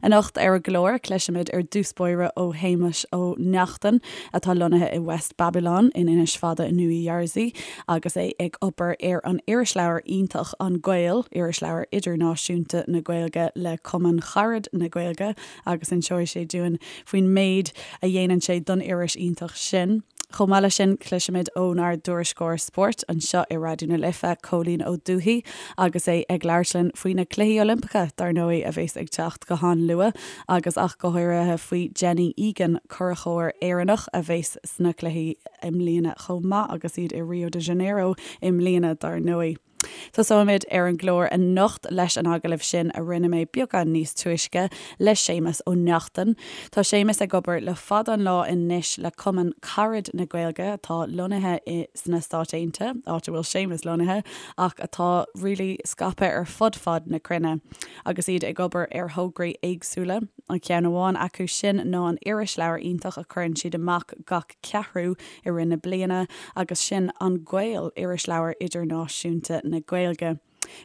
Anocht ar an gclár, cloisfimid ar dtús báire ó Shéamus Ó Neachtain, atá lonnaithe i West Babylon in Inis Fada i Nua Jersey agus é ag obair ar an irisleabhar iontach An Gael, irisleabhar idirnáisiúnta na Gaeilge le Cumann Carad na Gaeilge agus inseoidh sé dúinn faoin méid a dhéanann sé don iris iontach sin. Chomh maith leis sin, cloisfimid ónár dtuairisceoir spóirt anseo i Raidió na Life, Cóilín Ó Dubhthaigh, agus é ag labhairt linn faoi na Cluichí Oilimpeacha, dar ndóigh, a bheas ag teacht go han-luath, agus ach go háirithe faoi Jenny Egan, curachóir Éireannach a bheas sna cluichí i mbliana chomh maith, agus iad i Rio de Janeiro i mbliana, dar ndóigh. Tosóimid ar an gclár anocht leis an agallamh sin a rinne mé beagán níos túisce le Séamus Ó Neachtain. Tá Séamus ag obair le fada an lá anois le Cumann Carad na Gaeilge atá lonnaithe i sna Stáit Aontaithe, áit a bhfuil Séamus lonnaithe, ach atá really scaipthe ar fud fad na cruinne agus iad ag obair ar thograí éagsúla. An ceann amháin acu sin ná an irisleabhar iontach a chuireann siad amach gach ceathrú i rith na bliana agus sin An Gael, irisleabhar idirnáisiúnta na Gaeilge.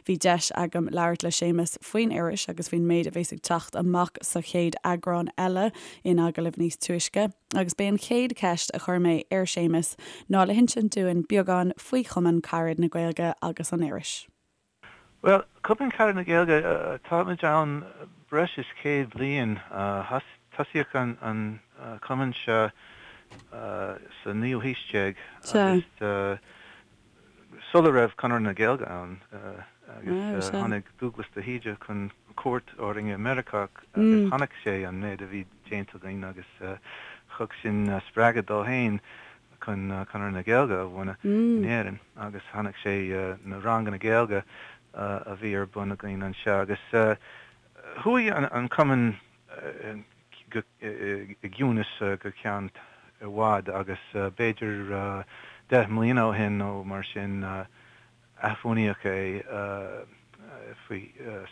Bhí deis agam labhairt le Séamus faoin iris agus faoin méid a bheas ag teacht amach sa chéad eagrán eile in agallamh níos túisce agus b'é an chéad cheist a chuir mé ar Séamus ná le hinsint dúinn beagán faoi Chumann Carad na Gaeilge agus an iris. Bhuel, Cumann Carad na Gaeilge, táimid ann breis is 100 bliain. Tosaíodh an cumann seo sa naoú haois déag agus sula raibh Conradh na Gaeilge ann agus tháinig Dúglas de hÍde chun cuairt orainn i Meiriceá agus chonaic sé an méid a bhí déanta againn agus thug sin spreagadh dó féin chun Conradh na Gaeilge a bhunú in Éirinn agus chonaic sé na ranganna Gaeilge a bhí ar bun againn anseo agus chuaigh an cumann i gciúnas go ceann i bhfad agus b'fhéidir 10 mbliana ó shin nó mar sin Athbhunaíodh é faoi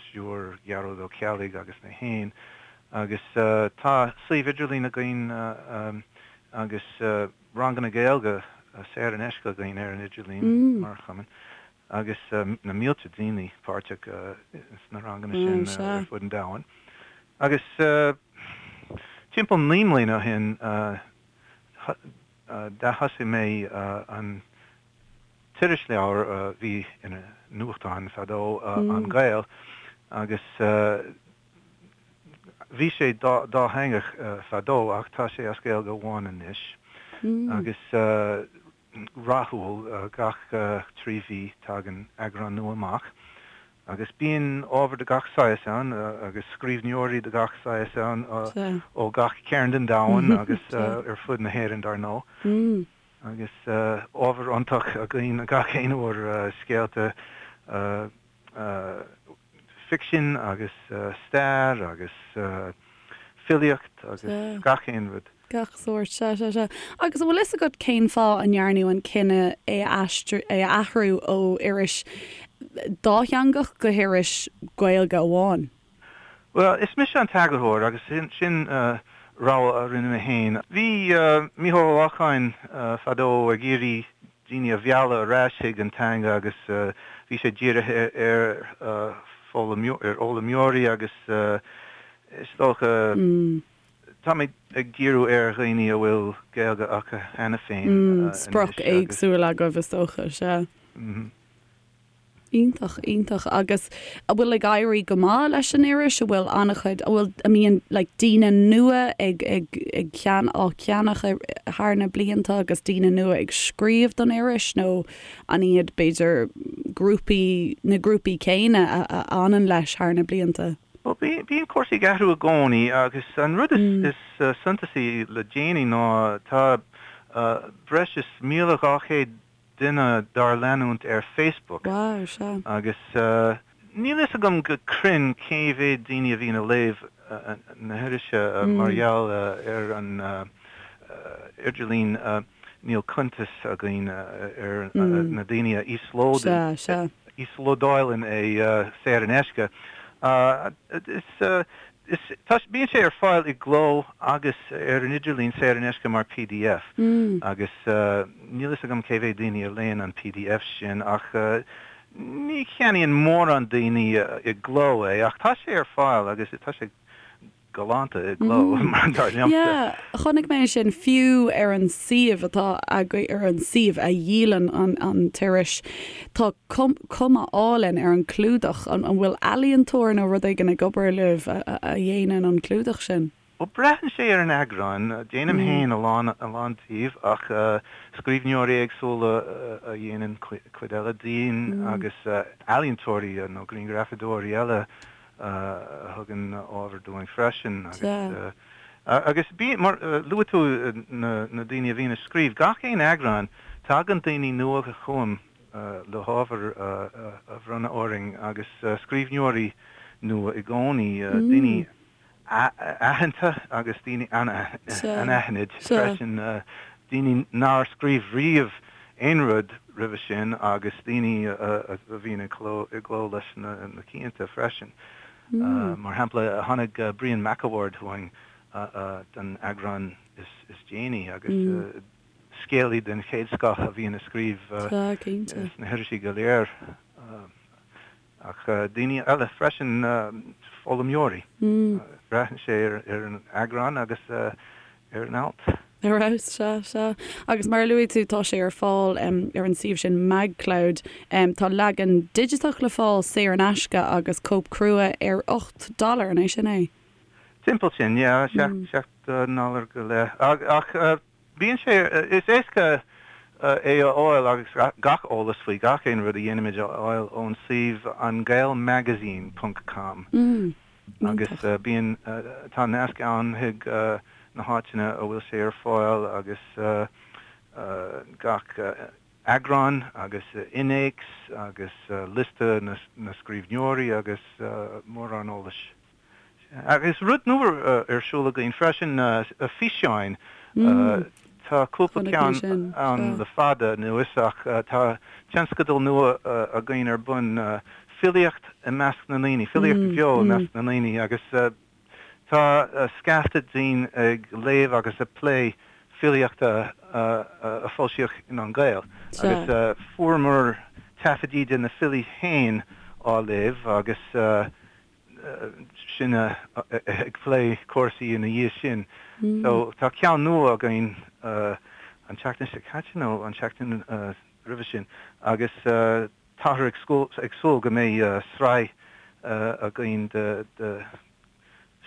stiúir Ghearóid Ó Ceallaigh agus mé féin agus tá suíomh idirlín againn agus ranganna Gaeilge saor in aisce againn ar an idirlíon mar chumann agus na mílte daoine páirteach sna ranganna sin ar fud an domhain. Agus timpeall 9 mbliana ó shin d'athosaigh mé an t-irisleabhar a bhí ina nuachtán fadó, An Gael, agus bhí sé dátheangach fadó ach tá sé as Gaeilge amháin anois agus rathúil, gach 3 mhí tagann eagrán nua amach agus bíonn ábhar de gach saghas ann agus scríbhneoirí de gach saghas ann ó gach cearn den domhan agus ar fud na hÉireann dar ndóigh. Agus ábhar iontach againn gach aon uair, scéalta ficsin agus stair agus filíocht agus gach aon rud. Gach sórt, sea, sea, sea. Agus an bhfuil fhios agat cén fáth a ndearnadh an cinneadh é a aistriú, é a athrú ó iris dátheangach go hiris Gaeilge amháin? Bhuel, is mise an t-eagarthóir agus sin rogha a rinne mé féin. Bhí Mícheál Ó Lorcáin fadó ag iarraidh daoine a mhealladh ar ais chuig an teanga agus bhí sé dírithe ar fhoghlaimeoirí agus is dócha táimid ag díriú ar dhaoine a bhfuil Gaeilge acu cheana féin anois. Sprioc éagsúil agaibh is dócha, sea. Iontach, iontach. Agus an bhfuil ag éirí go maith leis an iris? An bhfuil an-chuid, an bhfuil, an mbíonn like daoine nua ag, ag, ag cean, á ceannach thar na blianta agus daoine nua ag scríobh don iris nó an iad b'fhéidir grúpaí, na grúpaí céanna a, a fhanann leis thar na blianta? Bhuel, bíonn cúrsaí ag athrú i gcónaí agus an rud is, is suntasaí le déanaí ná tá breis is 1,200 duine dár leanúint ar Facebook Wow, sea. agus níl fhios agam go cruinn cé mhéad daoine a bhíonn ag léamh na hirise mar gheall ar an idirlíon níl cuntas againn ar na daoine a Sea, sea. íoslódáileann é saor in aisce. Is Is, tá, bíonn sé ar fáil i gcló agus ar an idirlíon saor in aisce mar pdf agus níl fhios agam cé mhéad daoine a léann an pdf sin ach ní cheannaíonn mórán daoine i gcló é ach tá sé ar fáil agus tá sé. galánta i gcló, dar liomsa. Yeah, chonaic mé sin fiú ar an suíomh atá agaibh, ar an suíomh a dhíolann an t-iris. Tá cuma álainn ar an clúdach. An bhfuil ealaíontóir nó rud éigin ag obair libh a dhéanann an clúdach sin? Bhuel, braitheann sé ar an eagrán. Déanaim féin a lán, a lán díobh ach scríbhneoirí éagsúla a dhéanann cuid eile dínn agus ealaíontóirí nó grianghrafadóirí eile a thugann ábhar dúinn freisin. Agus, agus bí, mar, luaigh tú na, na daoine a bhíonn ag scríobh. Gach aon eagrán, tagann daoine nua chugam le hábhar a bhronnadh orainn agus scríbhneoirí nua i gcónaí, daoine aitheanta agus daoine anaithnid freisin, daoine nár scríobh riamh aon rud roimhe sin agus daoine a bhíonn i gcló leis na cianta freisin. Mar shampla, tháinig Brian McAward chugainn don eagrán is déanaí agus scéalaí den chéad scoth a bhíonn ag scríobh sna hirisí go léir. Ach daoine eile freisin, foghlaimeoirí. Braitheann sé ar an eagrán agus ar an alt. Ar fheabhas, sea, sea. Agus mar a luaigh tú, tá sé ar fáil ar an suíomh sin MagCloud. Tá leagan digiteach le fáil saor in aisce agus cóip crua ar 8 dollar, an é sin é? Timpeall sin, yeah, 7 ndollar go leith. Ach Bíonn sé, is éasca é a fháil agus gach eolas faoi gach aon rud a dhéanaimid a fháil ón suíomh angaelmagazine ponc com agus bíonn, tá nasc ann chuig na háiteanna a bhfuil sé ar fáil agus gach eagrán agus innéacs agus liosta na scríbhneoirí agus mórán eolais. Agus rud nua ar siúl againn freisin, físeáin. Tá cúpla ceann ann le fada anuas ach tá tionscadal nua againn ar bun, filíocht i measc na ndaoine, filíocht bheo i measc na ndaoine agus tá scaifte dínn ag léamh agus ag plé filíochta a foilsíodh in An Gael agus fuaireamar taifidí de na filí féin á léamh agus sinne ag plé cúrsaí ina dhiaidh sin. So tá ceann nua againn an tseachtain seo caite nó an tseachtain roimhe sin agus táthar ag súil go mbeidh sraith againn de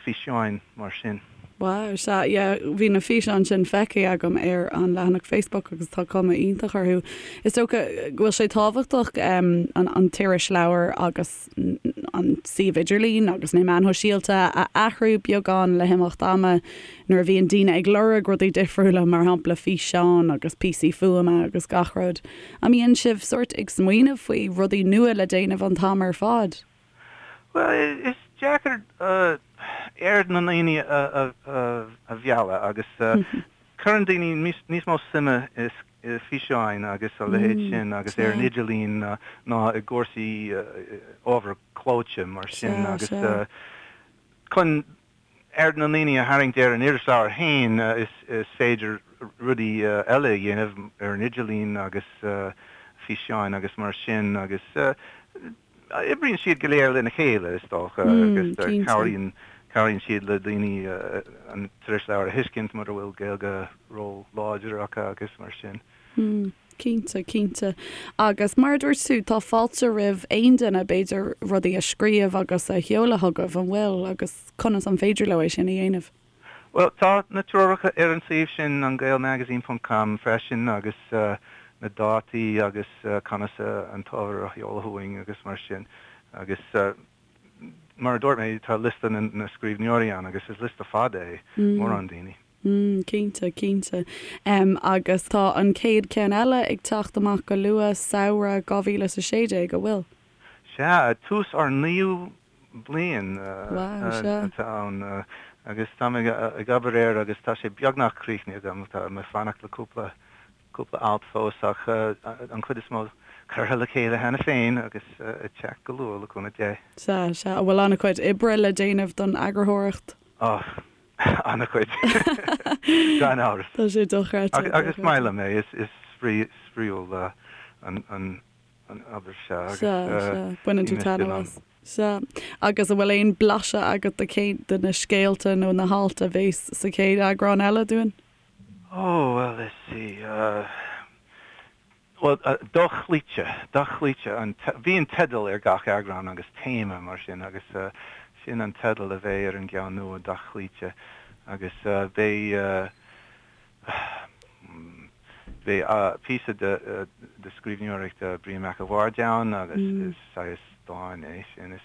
físeáin mar sin. Wow, sea, yeah, bhí na físeáin sin feicthe agam ar an leathanach Facebook agus tá cuma iontach orthu. Is dócha go bhfuil sé tábhachtach an t-irisleabhar agus an suíomh idirlín agus na meáin shóisialta a athrú beagán le himeacht ama nuair a bhíonn daoine ag lorg rudaí difriúla, mar shampla físeáin agus píosaí fuaime agus gach rud. An mbíonn sibh sórt ag smaoineamh faoi rudaí nua le déanamh an t-am ar fad? Bhuel, is deacair aird na ndaoine a mhealladh agus cuireann daoine níos mó suime i bhfíseáin agus a leithéid sin agus ar an idirlíon ná i gcúrsaí ábhar clóite mar sin agus chun aird na ndaoine a tharraingt ar an irisleabhar féin, is féidir rudaí eile a dhéanamh ar an idirlíon agus físeáin agus mar sin agus oibríonn siad go léir lena chéile, is dócha, agus cabhraíonn cabhraíonn siad le daoine an t-irisleabhar a thuiscint mura bhfuil Gaeilge ró-láidir acu agus mar sin. Cinnte, cinnte. Agus mar a dúirt tú, tá fáilte roimh aon duine, b'fhéidir, rudaí a scríobh agus a sheoladh chugaibh, an bhfuil? Agus conas an féidir leo é sin a dhéanamh? Bhuel, tá na treoracha ar an suíomh sin, angaelmagazine ponc com, freisin agus na dátaí agus conas an t-ábhar a sheoladh chugainn agus mar sin. Agus mar a dúirt mé, tá liosta na scríbhneoirí ann agus is liosta fada é, mórán daoine. Mm, cinnte, cinnte. Agus tá an chéad cheann eile ag teacht amach go luath, samhradh 2016, an bhfuil? Sea, tús ár naoú bliain atá ann agus táim ag obair air agus tá sé beagnach críochnaithe agam. Tá mé ag fanacht le cúpla cúpla alt fós ach an chuid is mó curtha le chéile cheana féin agus ag teacht go luath le cúnamh Dé. Sea, sea. An bhfuil an-chuid oibre le déanamh don eagarthóireacht? Oh, an-chuid, gan amhras. Tá sé dochreidte. Agus is maith liom é, is spraíúil an. An obair seo agus Sea, sea. Baineann bhí tú mise in taitneamh ann. as. Sea. Agus an bhfuil aon blaiseadh agat de cén, de na scéalta nó na hailt a bhéas sa chéad eagrán eile dúinn? Oh, well, let's see, bhuel, Dochloíte, Dochloíte an, bíonn teideal ar gach eagrán agus téama mar sin agus sin an teideal a bheidh ar an gceann nua, Dochloíte, agus beidh, Beidh píosa de scríbhneoireacht Brian Mac a' Bhaird ann agus is saghas dán é sin.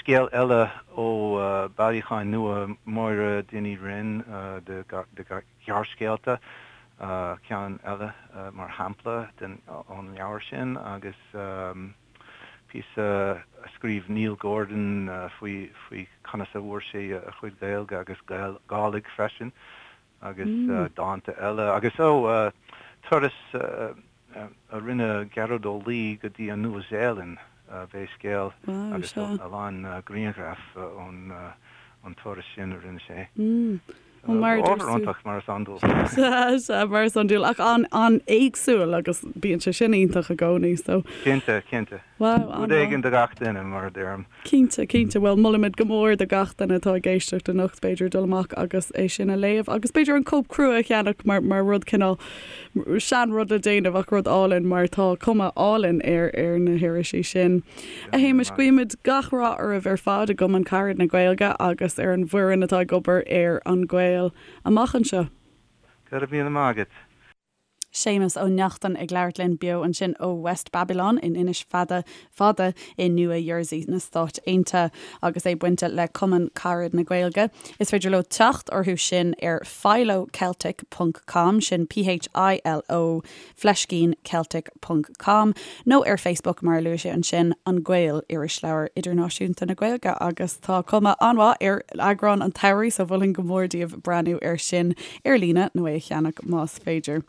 Scéal eile ó bailiúchán nua Máire Dinny Wren de ghearrscéalta, ceann eile mar shampla ón leabhar sin agus píosa a scríobh Neil Gordon faoi conas a bhfuair sé a chuid Gaeilge agus Gàidhlig freisin agus dánta eile agus, ó, turas a rinne Gearóid Ó Laoi go dtí an Nua-Zéalainn, beidh scéal agus a lán grianghraf ón turas sin a rinne sé. Ábhar iontach, mar is iondúil. Sea, sea, mar is iondúil, ach an-éagsúil agus bíonn sé sin iontach i gcónaí, so. Cinnte, cinnte. Wow, Rud éigin do gach duine, mar a deirim. Cinnte, cinnte. Bhuel, molaimid go mór do gach duine atá ag éisteacht anocht, b'fhéidir, dul amach agus é sin a léamh agus b'fhéidir an cóip crua a cheannach mar, mar rud cineál, sean-rud le déanamh ach rud álainn mar tá cuma álainn ar, ar na hirisí sin. A Shéamais, guímid gach rath oraibh ar fad i gCumann Carad na Gaeilge agus ar an bhfoireann atá ag obair ar An Gael amach anseo. Go raibh míle maith agat. Séamus Ó Neachtain ag labhairt linn beo ansin ó West Babylon in Inis Fada Fada i Nua Jersey na Stáit Aontaithe agus é bainte le Cumann Carad na Gaeilge. Is féidir leo teacht orthu sin ar philoceltic ponc com, sin P-H-I-L-O fleiscín Celtic ponc com, nó ar Facebook mar a luaigh sé ansin, An Gael, Irisleabhar Idirnáisiúnta na Gaeilge agus tá cuma an-mhaith ar eagrán an tsamhraidh so mholfainn go mór daoibh breathnú air sin ar líne nó é a cheannach más féidir.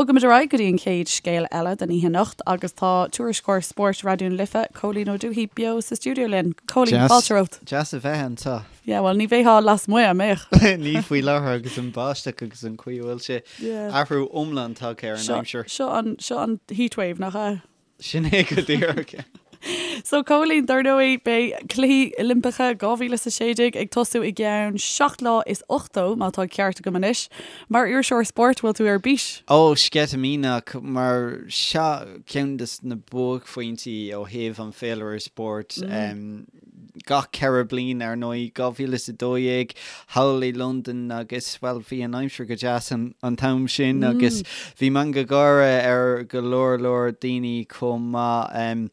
Bogaimid ar aghaidh go dtí an chéad scéal eile den oíche anocht agus tá tuairisceoir spóirt Raidió na Life, Cóilín Ó Dubhthaigh beo sa stiúideo linn. Cóilín, fáilte romhat. Deas a bheith anseo. Yeah, bhuel, ní bheifeá lasmuigh, an mbeadh? Ní faoi láthair agus an báisteach agus an chaoi a bhfuil sé. Athrú iomlán tagtha ar an aimsir. Seo an, seo an heatwave, nach ea? Sin é go díreach. So, Cóilín, dar ndóigh, beidh Cluichí Oilimpeacha 2016 ag tosú i gceann 7 lá is 80, má tá ceart agam anois. Mar iriseoir spóirt, bhfuil tú ar bís? Ó, sceitimíneach, mar seo ceann de na buaicphointí ó thaobh an féilire spóirt. Gach 4 bliain, ar ndóigh, 2012 thall i Londain agus, bhuel, bhí an aimsir go deas an t-am sin agus bhí meangadh gáire ar go leor leor daoine chomh maith.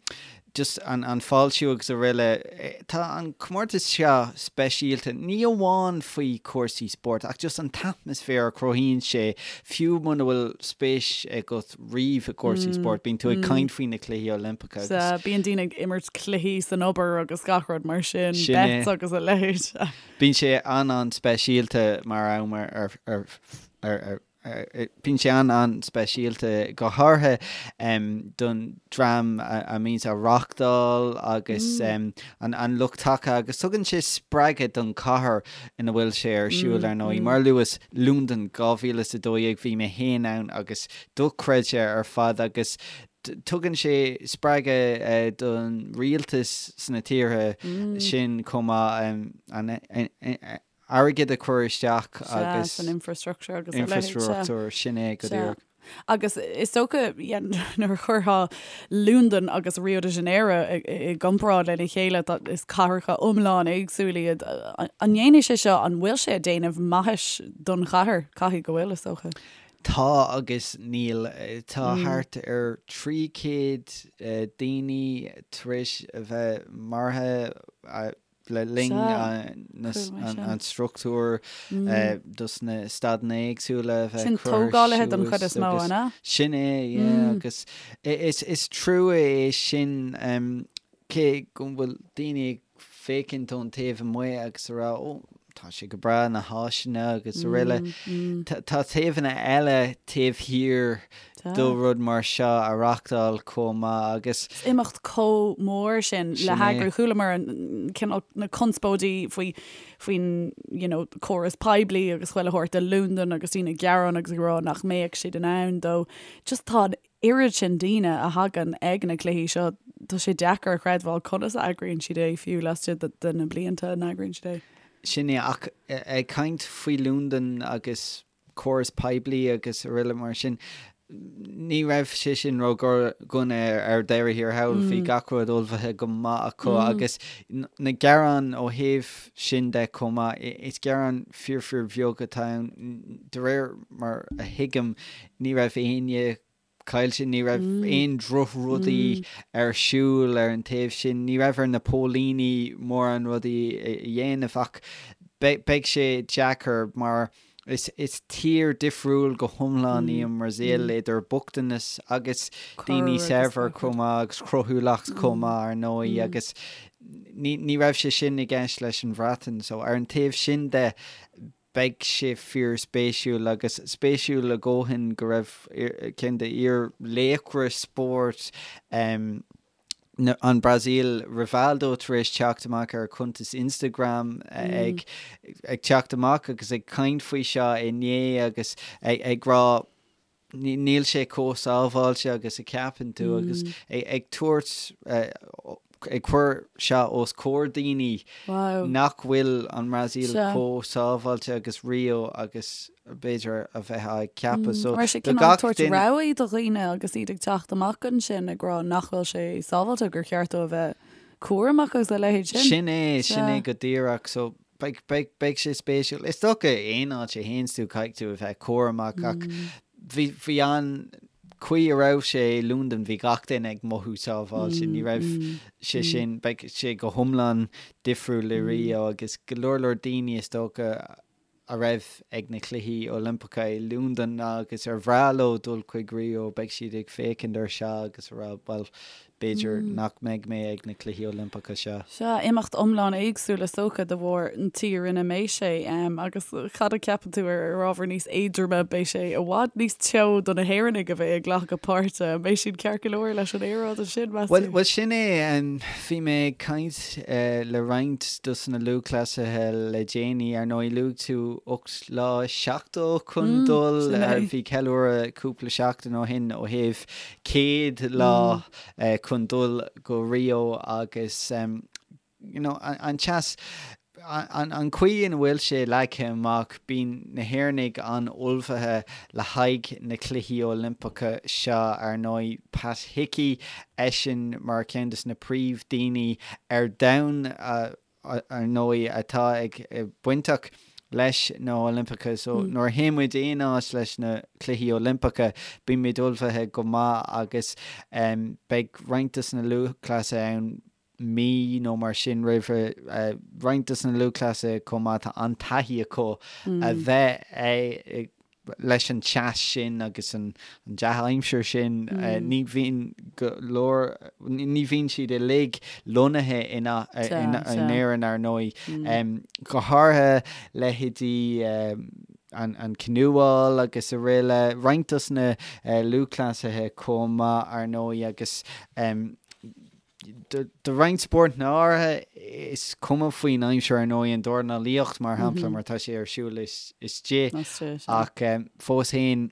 Just an fáiltiú agus araile. Tá an comórtas seo speisialta, ní amháin faoi chúrsaí spóirt ach just an t-atmaisféar a chruthaíonn sé, fiú muna bhfuil spéis agat riamh i gcúrsaí spóirt, bíonn tú ag caint faoi na Cluichí Oilimpeacha agus. Sea, bíonn daoine ag imirt cluichí san obair agus gach rud mar sin, Sin é. bets agus a leithéid. Bíonn sé an-an-speisialta mar am ar, ar, ar, ar, ar, bíonn sé an-an-speisialta go háirithe don dream a mbíonns á reáchtáil agus an, an lucht taca agus tugann sé spreagadh don chathair ina bhfuil sé ar siúl ar ndóigh. Mar a luas, Londain 2012, bhí mé féin ann agus dochreidte ar fad agus tugann sé spreagadh don rialtas sna tíortha sin chomh maith an airgead a chur isteach agus san infrastructure agus a leithéid. Infrastruchtúr, sin é go díreach. Agus is dócha nuair a chuirfeá Londain agus Rio de Janeiro i gcomparáid lena chéile, is cathracha iomlán éagsúil iad. An ndéanfaidh sé seo, an bhfuil sé ag déanamh maithis don chathair? Caithfidh go bhfuil, is dócha. Tá agus níl. Tá thart ar 300 daoine tar éis a bheith maraithe le linn an struchtúr dos na staideanna éagsúla a bheith Sin curtha tógálaithe don chuid suas is mó, agus an ea? sin é, yeah, agus is trua é sin cé go bhfuil daoine ag féachaint ón taobh amuigh agus a rá, ó, Tá sé go breá, na háiseanna agus araile. Tá taobhanna eile taobh thiar do rud mar seo a reachtáil chomh maith agus. Is imeacht chomh mór sin le heagrú. Chualamar an cineál na conspóidí faoi faoin you know córas poiblí agus chuile shórt i Londain agus daoine ag gearán agus ag rá nach mbeadh siad in ann dó. Just tá an oiread sin daoine a thagann ag na cluichí seo, tá sé deacair a chreidbheáil conas a eagraíonn siad é fiú laistigh de na blianta a n-eagraíonn siad é. Sin é, ach ag caint faoi Londain agus córas poiblí agus araile mar sin, ní raibh sé sin ró-dhona ar deireadh thiar thall, bhí gach rud ullmhaithe go maith acu agus na gearáin ó thaobh sin de chomh maith, is gearáin fíor fíor bheag atá ann, de réir mar a thuigim, Ní raibh éinne caillte, ní raibh aon drochrudaí ar siúl ar an taobh sin, ní raibh ar na póilíní mórán rudaí a dhéanamh ach beidh sé deacair mar is tír difriúil go hiomlán í an mBrasaíl idir bochtanas agus daoine saibhir chomh maith agus cruthúlacht chomh maith ar ndóigh agus ní raibh sé sin i gceist leis an Bhreatain so ar an taobh sin de Beidh sé fíorspéisiúil, agus spéisiúil a dhóthain go raibh ceann de fhíor-laochra spóirt an Brasaíl, Rivaldo, tar éis teacht amach ar a chuntas Instagram ag ag teacht amach agus ag caint faoi seo inné agus ag rá níl sé chomh sábháilte agus a cheapann tú agus ag tabhairt, ag cur seo os comhair daoine nach bhfuil an mBrasaíl chomh sábháilte agus Rio agus b'fhéidir a bheifeá ag ceapadh. So Raibh sé cineál ag tabhairt rabhaidh do dhaoine agus iad ag teacht amach ansin ag rá nach bhfuil sé sábháilte, gur cheart dóibh a bheith cúramach agus a leithéid sin. Sin é, sin é go díreach. So Beidh, beidh, beidh sé spéisiúil. Is dócha aon áit a théanns tú caithfidh tú a bheith cúramach ach bhí, bhí an chaoi a raibh sé i Londain bhí gach duine ag mothú sábháilte. Ní raibh sé sin, beidh sé go hiomlán difriúil i Rio agus go leor leor daoine is dócha a raibh ag na Cluichí Oilimpeacha i Londain agus ar bhreá leo dul chuig Rio beidh siad ag féachaint ar seo agus a rá bhuel B'fhéidir nach mbeidh mé ag na Cluichí Oilimpeacha seo. Sea, imeacht iomlán éagsúil is dócha de bharr an tír ina mbeidh sé. Agus cad a cheapann tú ar ábhar níos éadroime, beidh sé i bhfad níos teo do na hÉireannaigh a bheidh ag glacadh páirte. An mbeidh siad ceart go leor leis an aeráid ansin, meas tú? Bhuel, sin é. Bhí mé ag caint le roinnt dos na lúthchleasaithe le déanaí. Ar ndóigh, luaigh tú 8 lá is 70 chun dul. Bhí ceiliúradh cúpla seachtain ó shin ó thaobh 100 lá chun dul go Rio agus you know an teas, an chaoi ina bhfuil sé leagtha amach, bíonn na hÉireannaigh an-ullmhaithe le haghaidh na Cluichí Oilimpeacha seo ar ndóigh. Pat Hickey, eisean mar cheann de na príomh-daoine ar domhan a ar ndóigh, atá ag bainteach leis na hOilimpeacha. So nuair a théann muid aon áit leis na Cluichí Oilimpeacha, bíonn muid ullmhaithe go maith agus beidh roinnt dos na lúthchleasaithe ann mí nó mar sin roimhe. Roinnt dos na lúthchleasaithe chomh maith, tá an-taithí acu a bheith ag leis an teas sin agus an dea-aimsir sin, ní bhíonn go leor, ní bhíonn siad uilig lonnaithe in Éirinn, ar ndóigh. Go háirithe leithéidí an canúáil agus araile, roinnt dos na lúthchleasaithe chomh maith, ar ndóigh, agus Do roinnt spórtanna áirithe, is cuma faoin aimsir ar ndóigh, an dornálaíocht mar shampla, mar tá sé ar siúl istigh, ach fós féin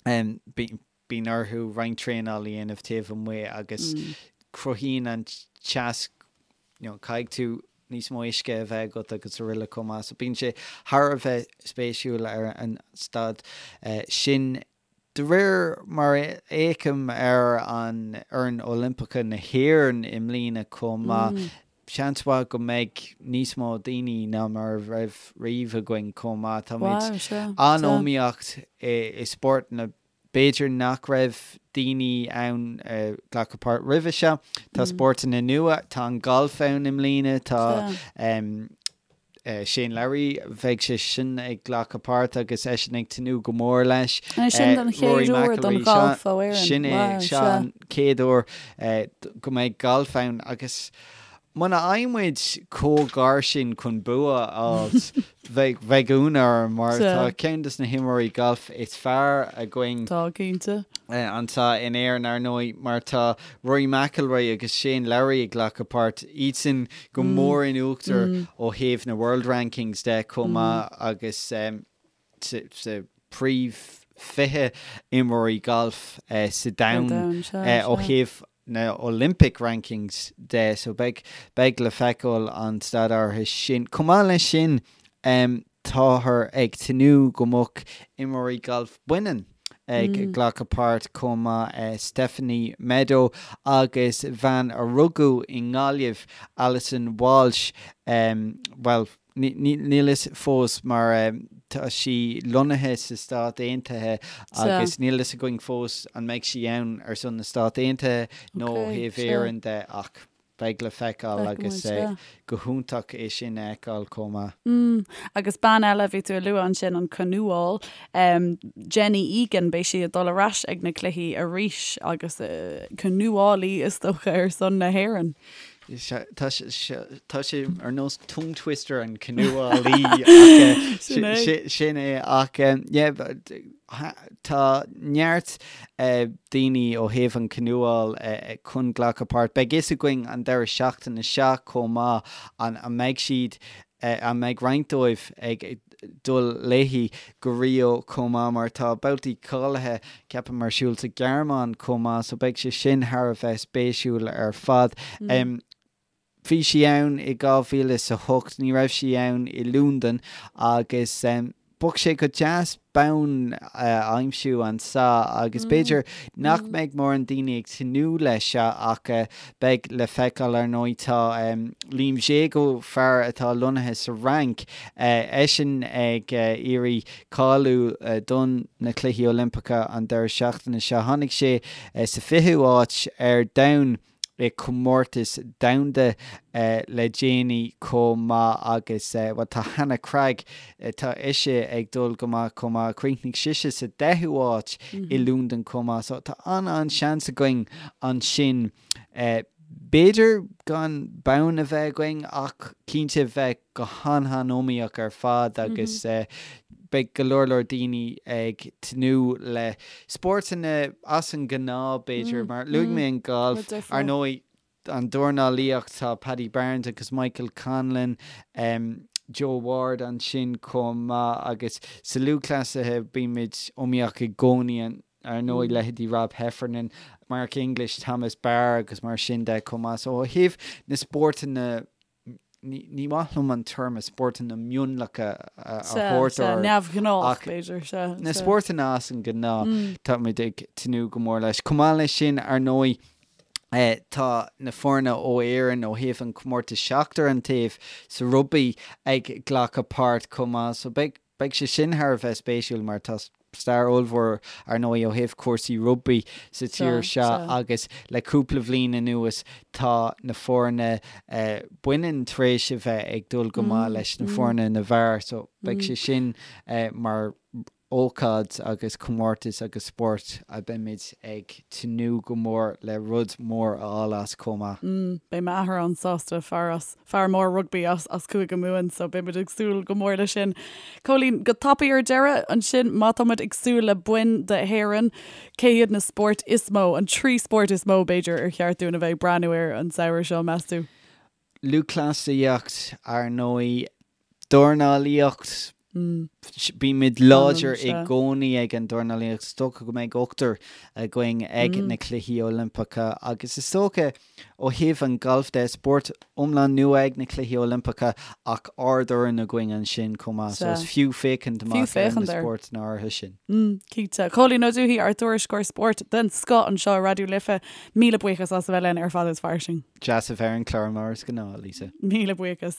bíonn orthu roinnt traenáil a dhéanamh taobh amuigh agus cruthaíonn an teas, you know, caithfidh tú níos mó uisce a bheith agat agus araile chomh maith. So bíonn sé thar a bheith spéisiúil ar an staid sin. De réir mar a fhéachaim ar an fhoireann Oilimpeacha na hÉireann i mbliana chomh maith, seans mhaith go mbeidh níos mó daoine ná mar a raibh riamh againn chomh maith. Táimid an-iomaíocht i spórtanna b'fhéidir nach raibh daoine ann a ghlacadh páirt roimhe seo. Tá spórtanna nua, tá an galf ann i mbliana, tá Shane Lowry, bheidh sé sin ag glacadh páirt agus eisean ag tnúth go mór leis. An é sin don chéad uair don ghalf ó Éirinn? Sin é, seo an chéad uair go mbeidh galf ann agus. Muna bhfaighidh muid chomh gar sin chun bua a fháilt, bheadh, bheadh ionadh orm mar tá ceann de na himreoirí gailf is fearr againn. Tá, cinnte. anseo in Éirinn, ar ndóigh, mar tá Rory McIlroy agus Shane Lowry ag glacadh páirt, iadsan go mór in uachtar ó thaobh na World Rankings de chomh maith agus sa príomh 20 imreoirí gailf sa domhan ó thaobh na Olympic Rankings de so beidh beidh le feiceáil an staid áirithe sin. Chomh maith leis sin táthar ag tnúth go mbeadh imreoirí gailf baineann ag glacadh páirt chomh maith, Stephanie Meadow agus bean a rugadh i nGaillimh, Alison Walsh, bhuel, Níl fhios fós mar tá sí lonnaithe sa Stát Aontaithe agus níl fhios againn fós an mbeidh sí ann ar son na Stát Aontaithe nó ó thaobh Éireann de ach beidh le feiceáil agus go hiontach é sin a fheiceáil chomh maith. Mm, agus bean eile a bhí tú a lua ansin, an canúáil, Jenny Egan, beidh sí ag dul ar ais ag na cluichí arís agus canúálaí is dócha ar son na hÉireann. Tá sé ar nós tongue twister an canúálaí ach sin é ach yeah tá neart daoine ó thaobh an canúáil chun glacadh páirt. Beidh fhios againn an deireadh seachtaine seo chomh maith an mbeidh siad an mbeidh roinnt dóibh ag dul léi go Rio chomh maith mar tá babhtaí cáilithe, ceapaim, ar siúl sa Ghearmáin chomh maith so beidh sé sin thar a bheith spéisiúil ar fad. Bhí sí ann i 2008, ní raibh sí ann i Londain agus bheadh sé go deas bonn a aimsiú anso agus b'fhéidir nach mbeidh mórán daoine ag tnúth leis seo ach beidh le feiceáil ar ndóigh. Tá Liam Jago, fear atá lonnaithe sa Fhrainc, eisean ag iarraidh cáiliú don na Cluichí Oilimpeacha an deireadh seachtaine seo. Tháinig sé sa 20ú áit ar domhan i comórtas domhanda le déanaí chomh maith agus, bhuel, tá Hannah Cregg, tá ise ag dul go maith chomh maith, chríochnaigh sise sa deichiú háit i Londain chomh maith so tá an-an-seans againn ansin. B'fhéidir gan bonn a bheith againn ach cinnte bheith go han-han-iomaíoch ar fad agus beidh go leor leor daoine ag tnúth le spórtanna as an ngnáth b'fhéidir mar luaigh mé an galf, ar ndóigh an dornálaíocht tá Paddy Barnes agus Michael Conlan, Joe Ward ansin chomh maith agus sa lúthchleasaithe bímid iomaíoch i gcónaí ar ndóigh leithéidí Rob Heffernan, Mark English, Thomas Barr agus mar sin de chomh maith. So ó thaobh na spórtanna ní maith liom an téarma spórtanna mionlacha a thabhairt orthu. Neamhghnách, b'fhéidir, sea. Na spórtanna as an ngnáth, táimid ag tnúth go mór leis. Chomh maith leis sin, ar ndóigh, tá na foirne ó Éirinn ó thaobh an chomórtais seachtar an taobh sa rugbaí ag glacadh páirt chomh maith. So beidh Beidh sé sin thar a bheith spéisiúil mar tá stair ollmhór ar ndóigh ó thaobh cúrsaí rugbaí sa tír seo agus le cúpla bhliain anuas tá na foirne baineann tar éis a bheith ag dul go maith leis na foirne na bhfear so beidh sé sin mar ócáid agus comórtas agus spórt a beimid ag tnúth go mór le rud mór a fháil as chomh maith. Beidh m'athair an-sásta, fear as fear mór rugbaí as as Cúige Mumhan so beidh muid ag súil go mór leis sin. Cóilín, go tapaidh ar deireadh ansin, má tá muid ag súil le boinn d'Éirinn, cé hiad na spóirt is mó, an trí spórt is mó b'fhéidir ar cheart dúinn a bheith ag breathnú air an samhradh seo, meas tú? Lúthchleasaíocht, ar ndóigh, dornálaíocht, Bímid láidir i gcónaí ag an dornálaíocht. Is dócha go mbeidh ochtar againn ag na Cluichí Oilimpeacha agus is dócha ó thaobh an ghailf de, spórt iomlán nua ag na Cluichí Oilimpeacha ach ardfhoireann againn ansin chomh maith so is fiú féachaint amach ar na spórtanna áirithe sin. Cinnte. Cóilín Ó Dubhthaigh, ár dtuairisceoir spóirt den scoth anseo i Raidió Life, míle buíochas as a bheith linn ar Fada is Fairsing. Deas a bheith ar an chlár mar is gnáth, Lisa. Míle buíochas.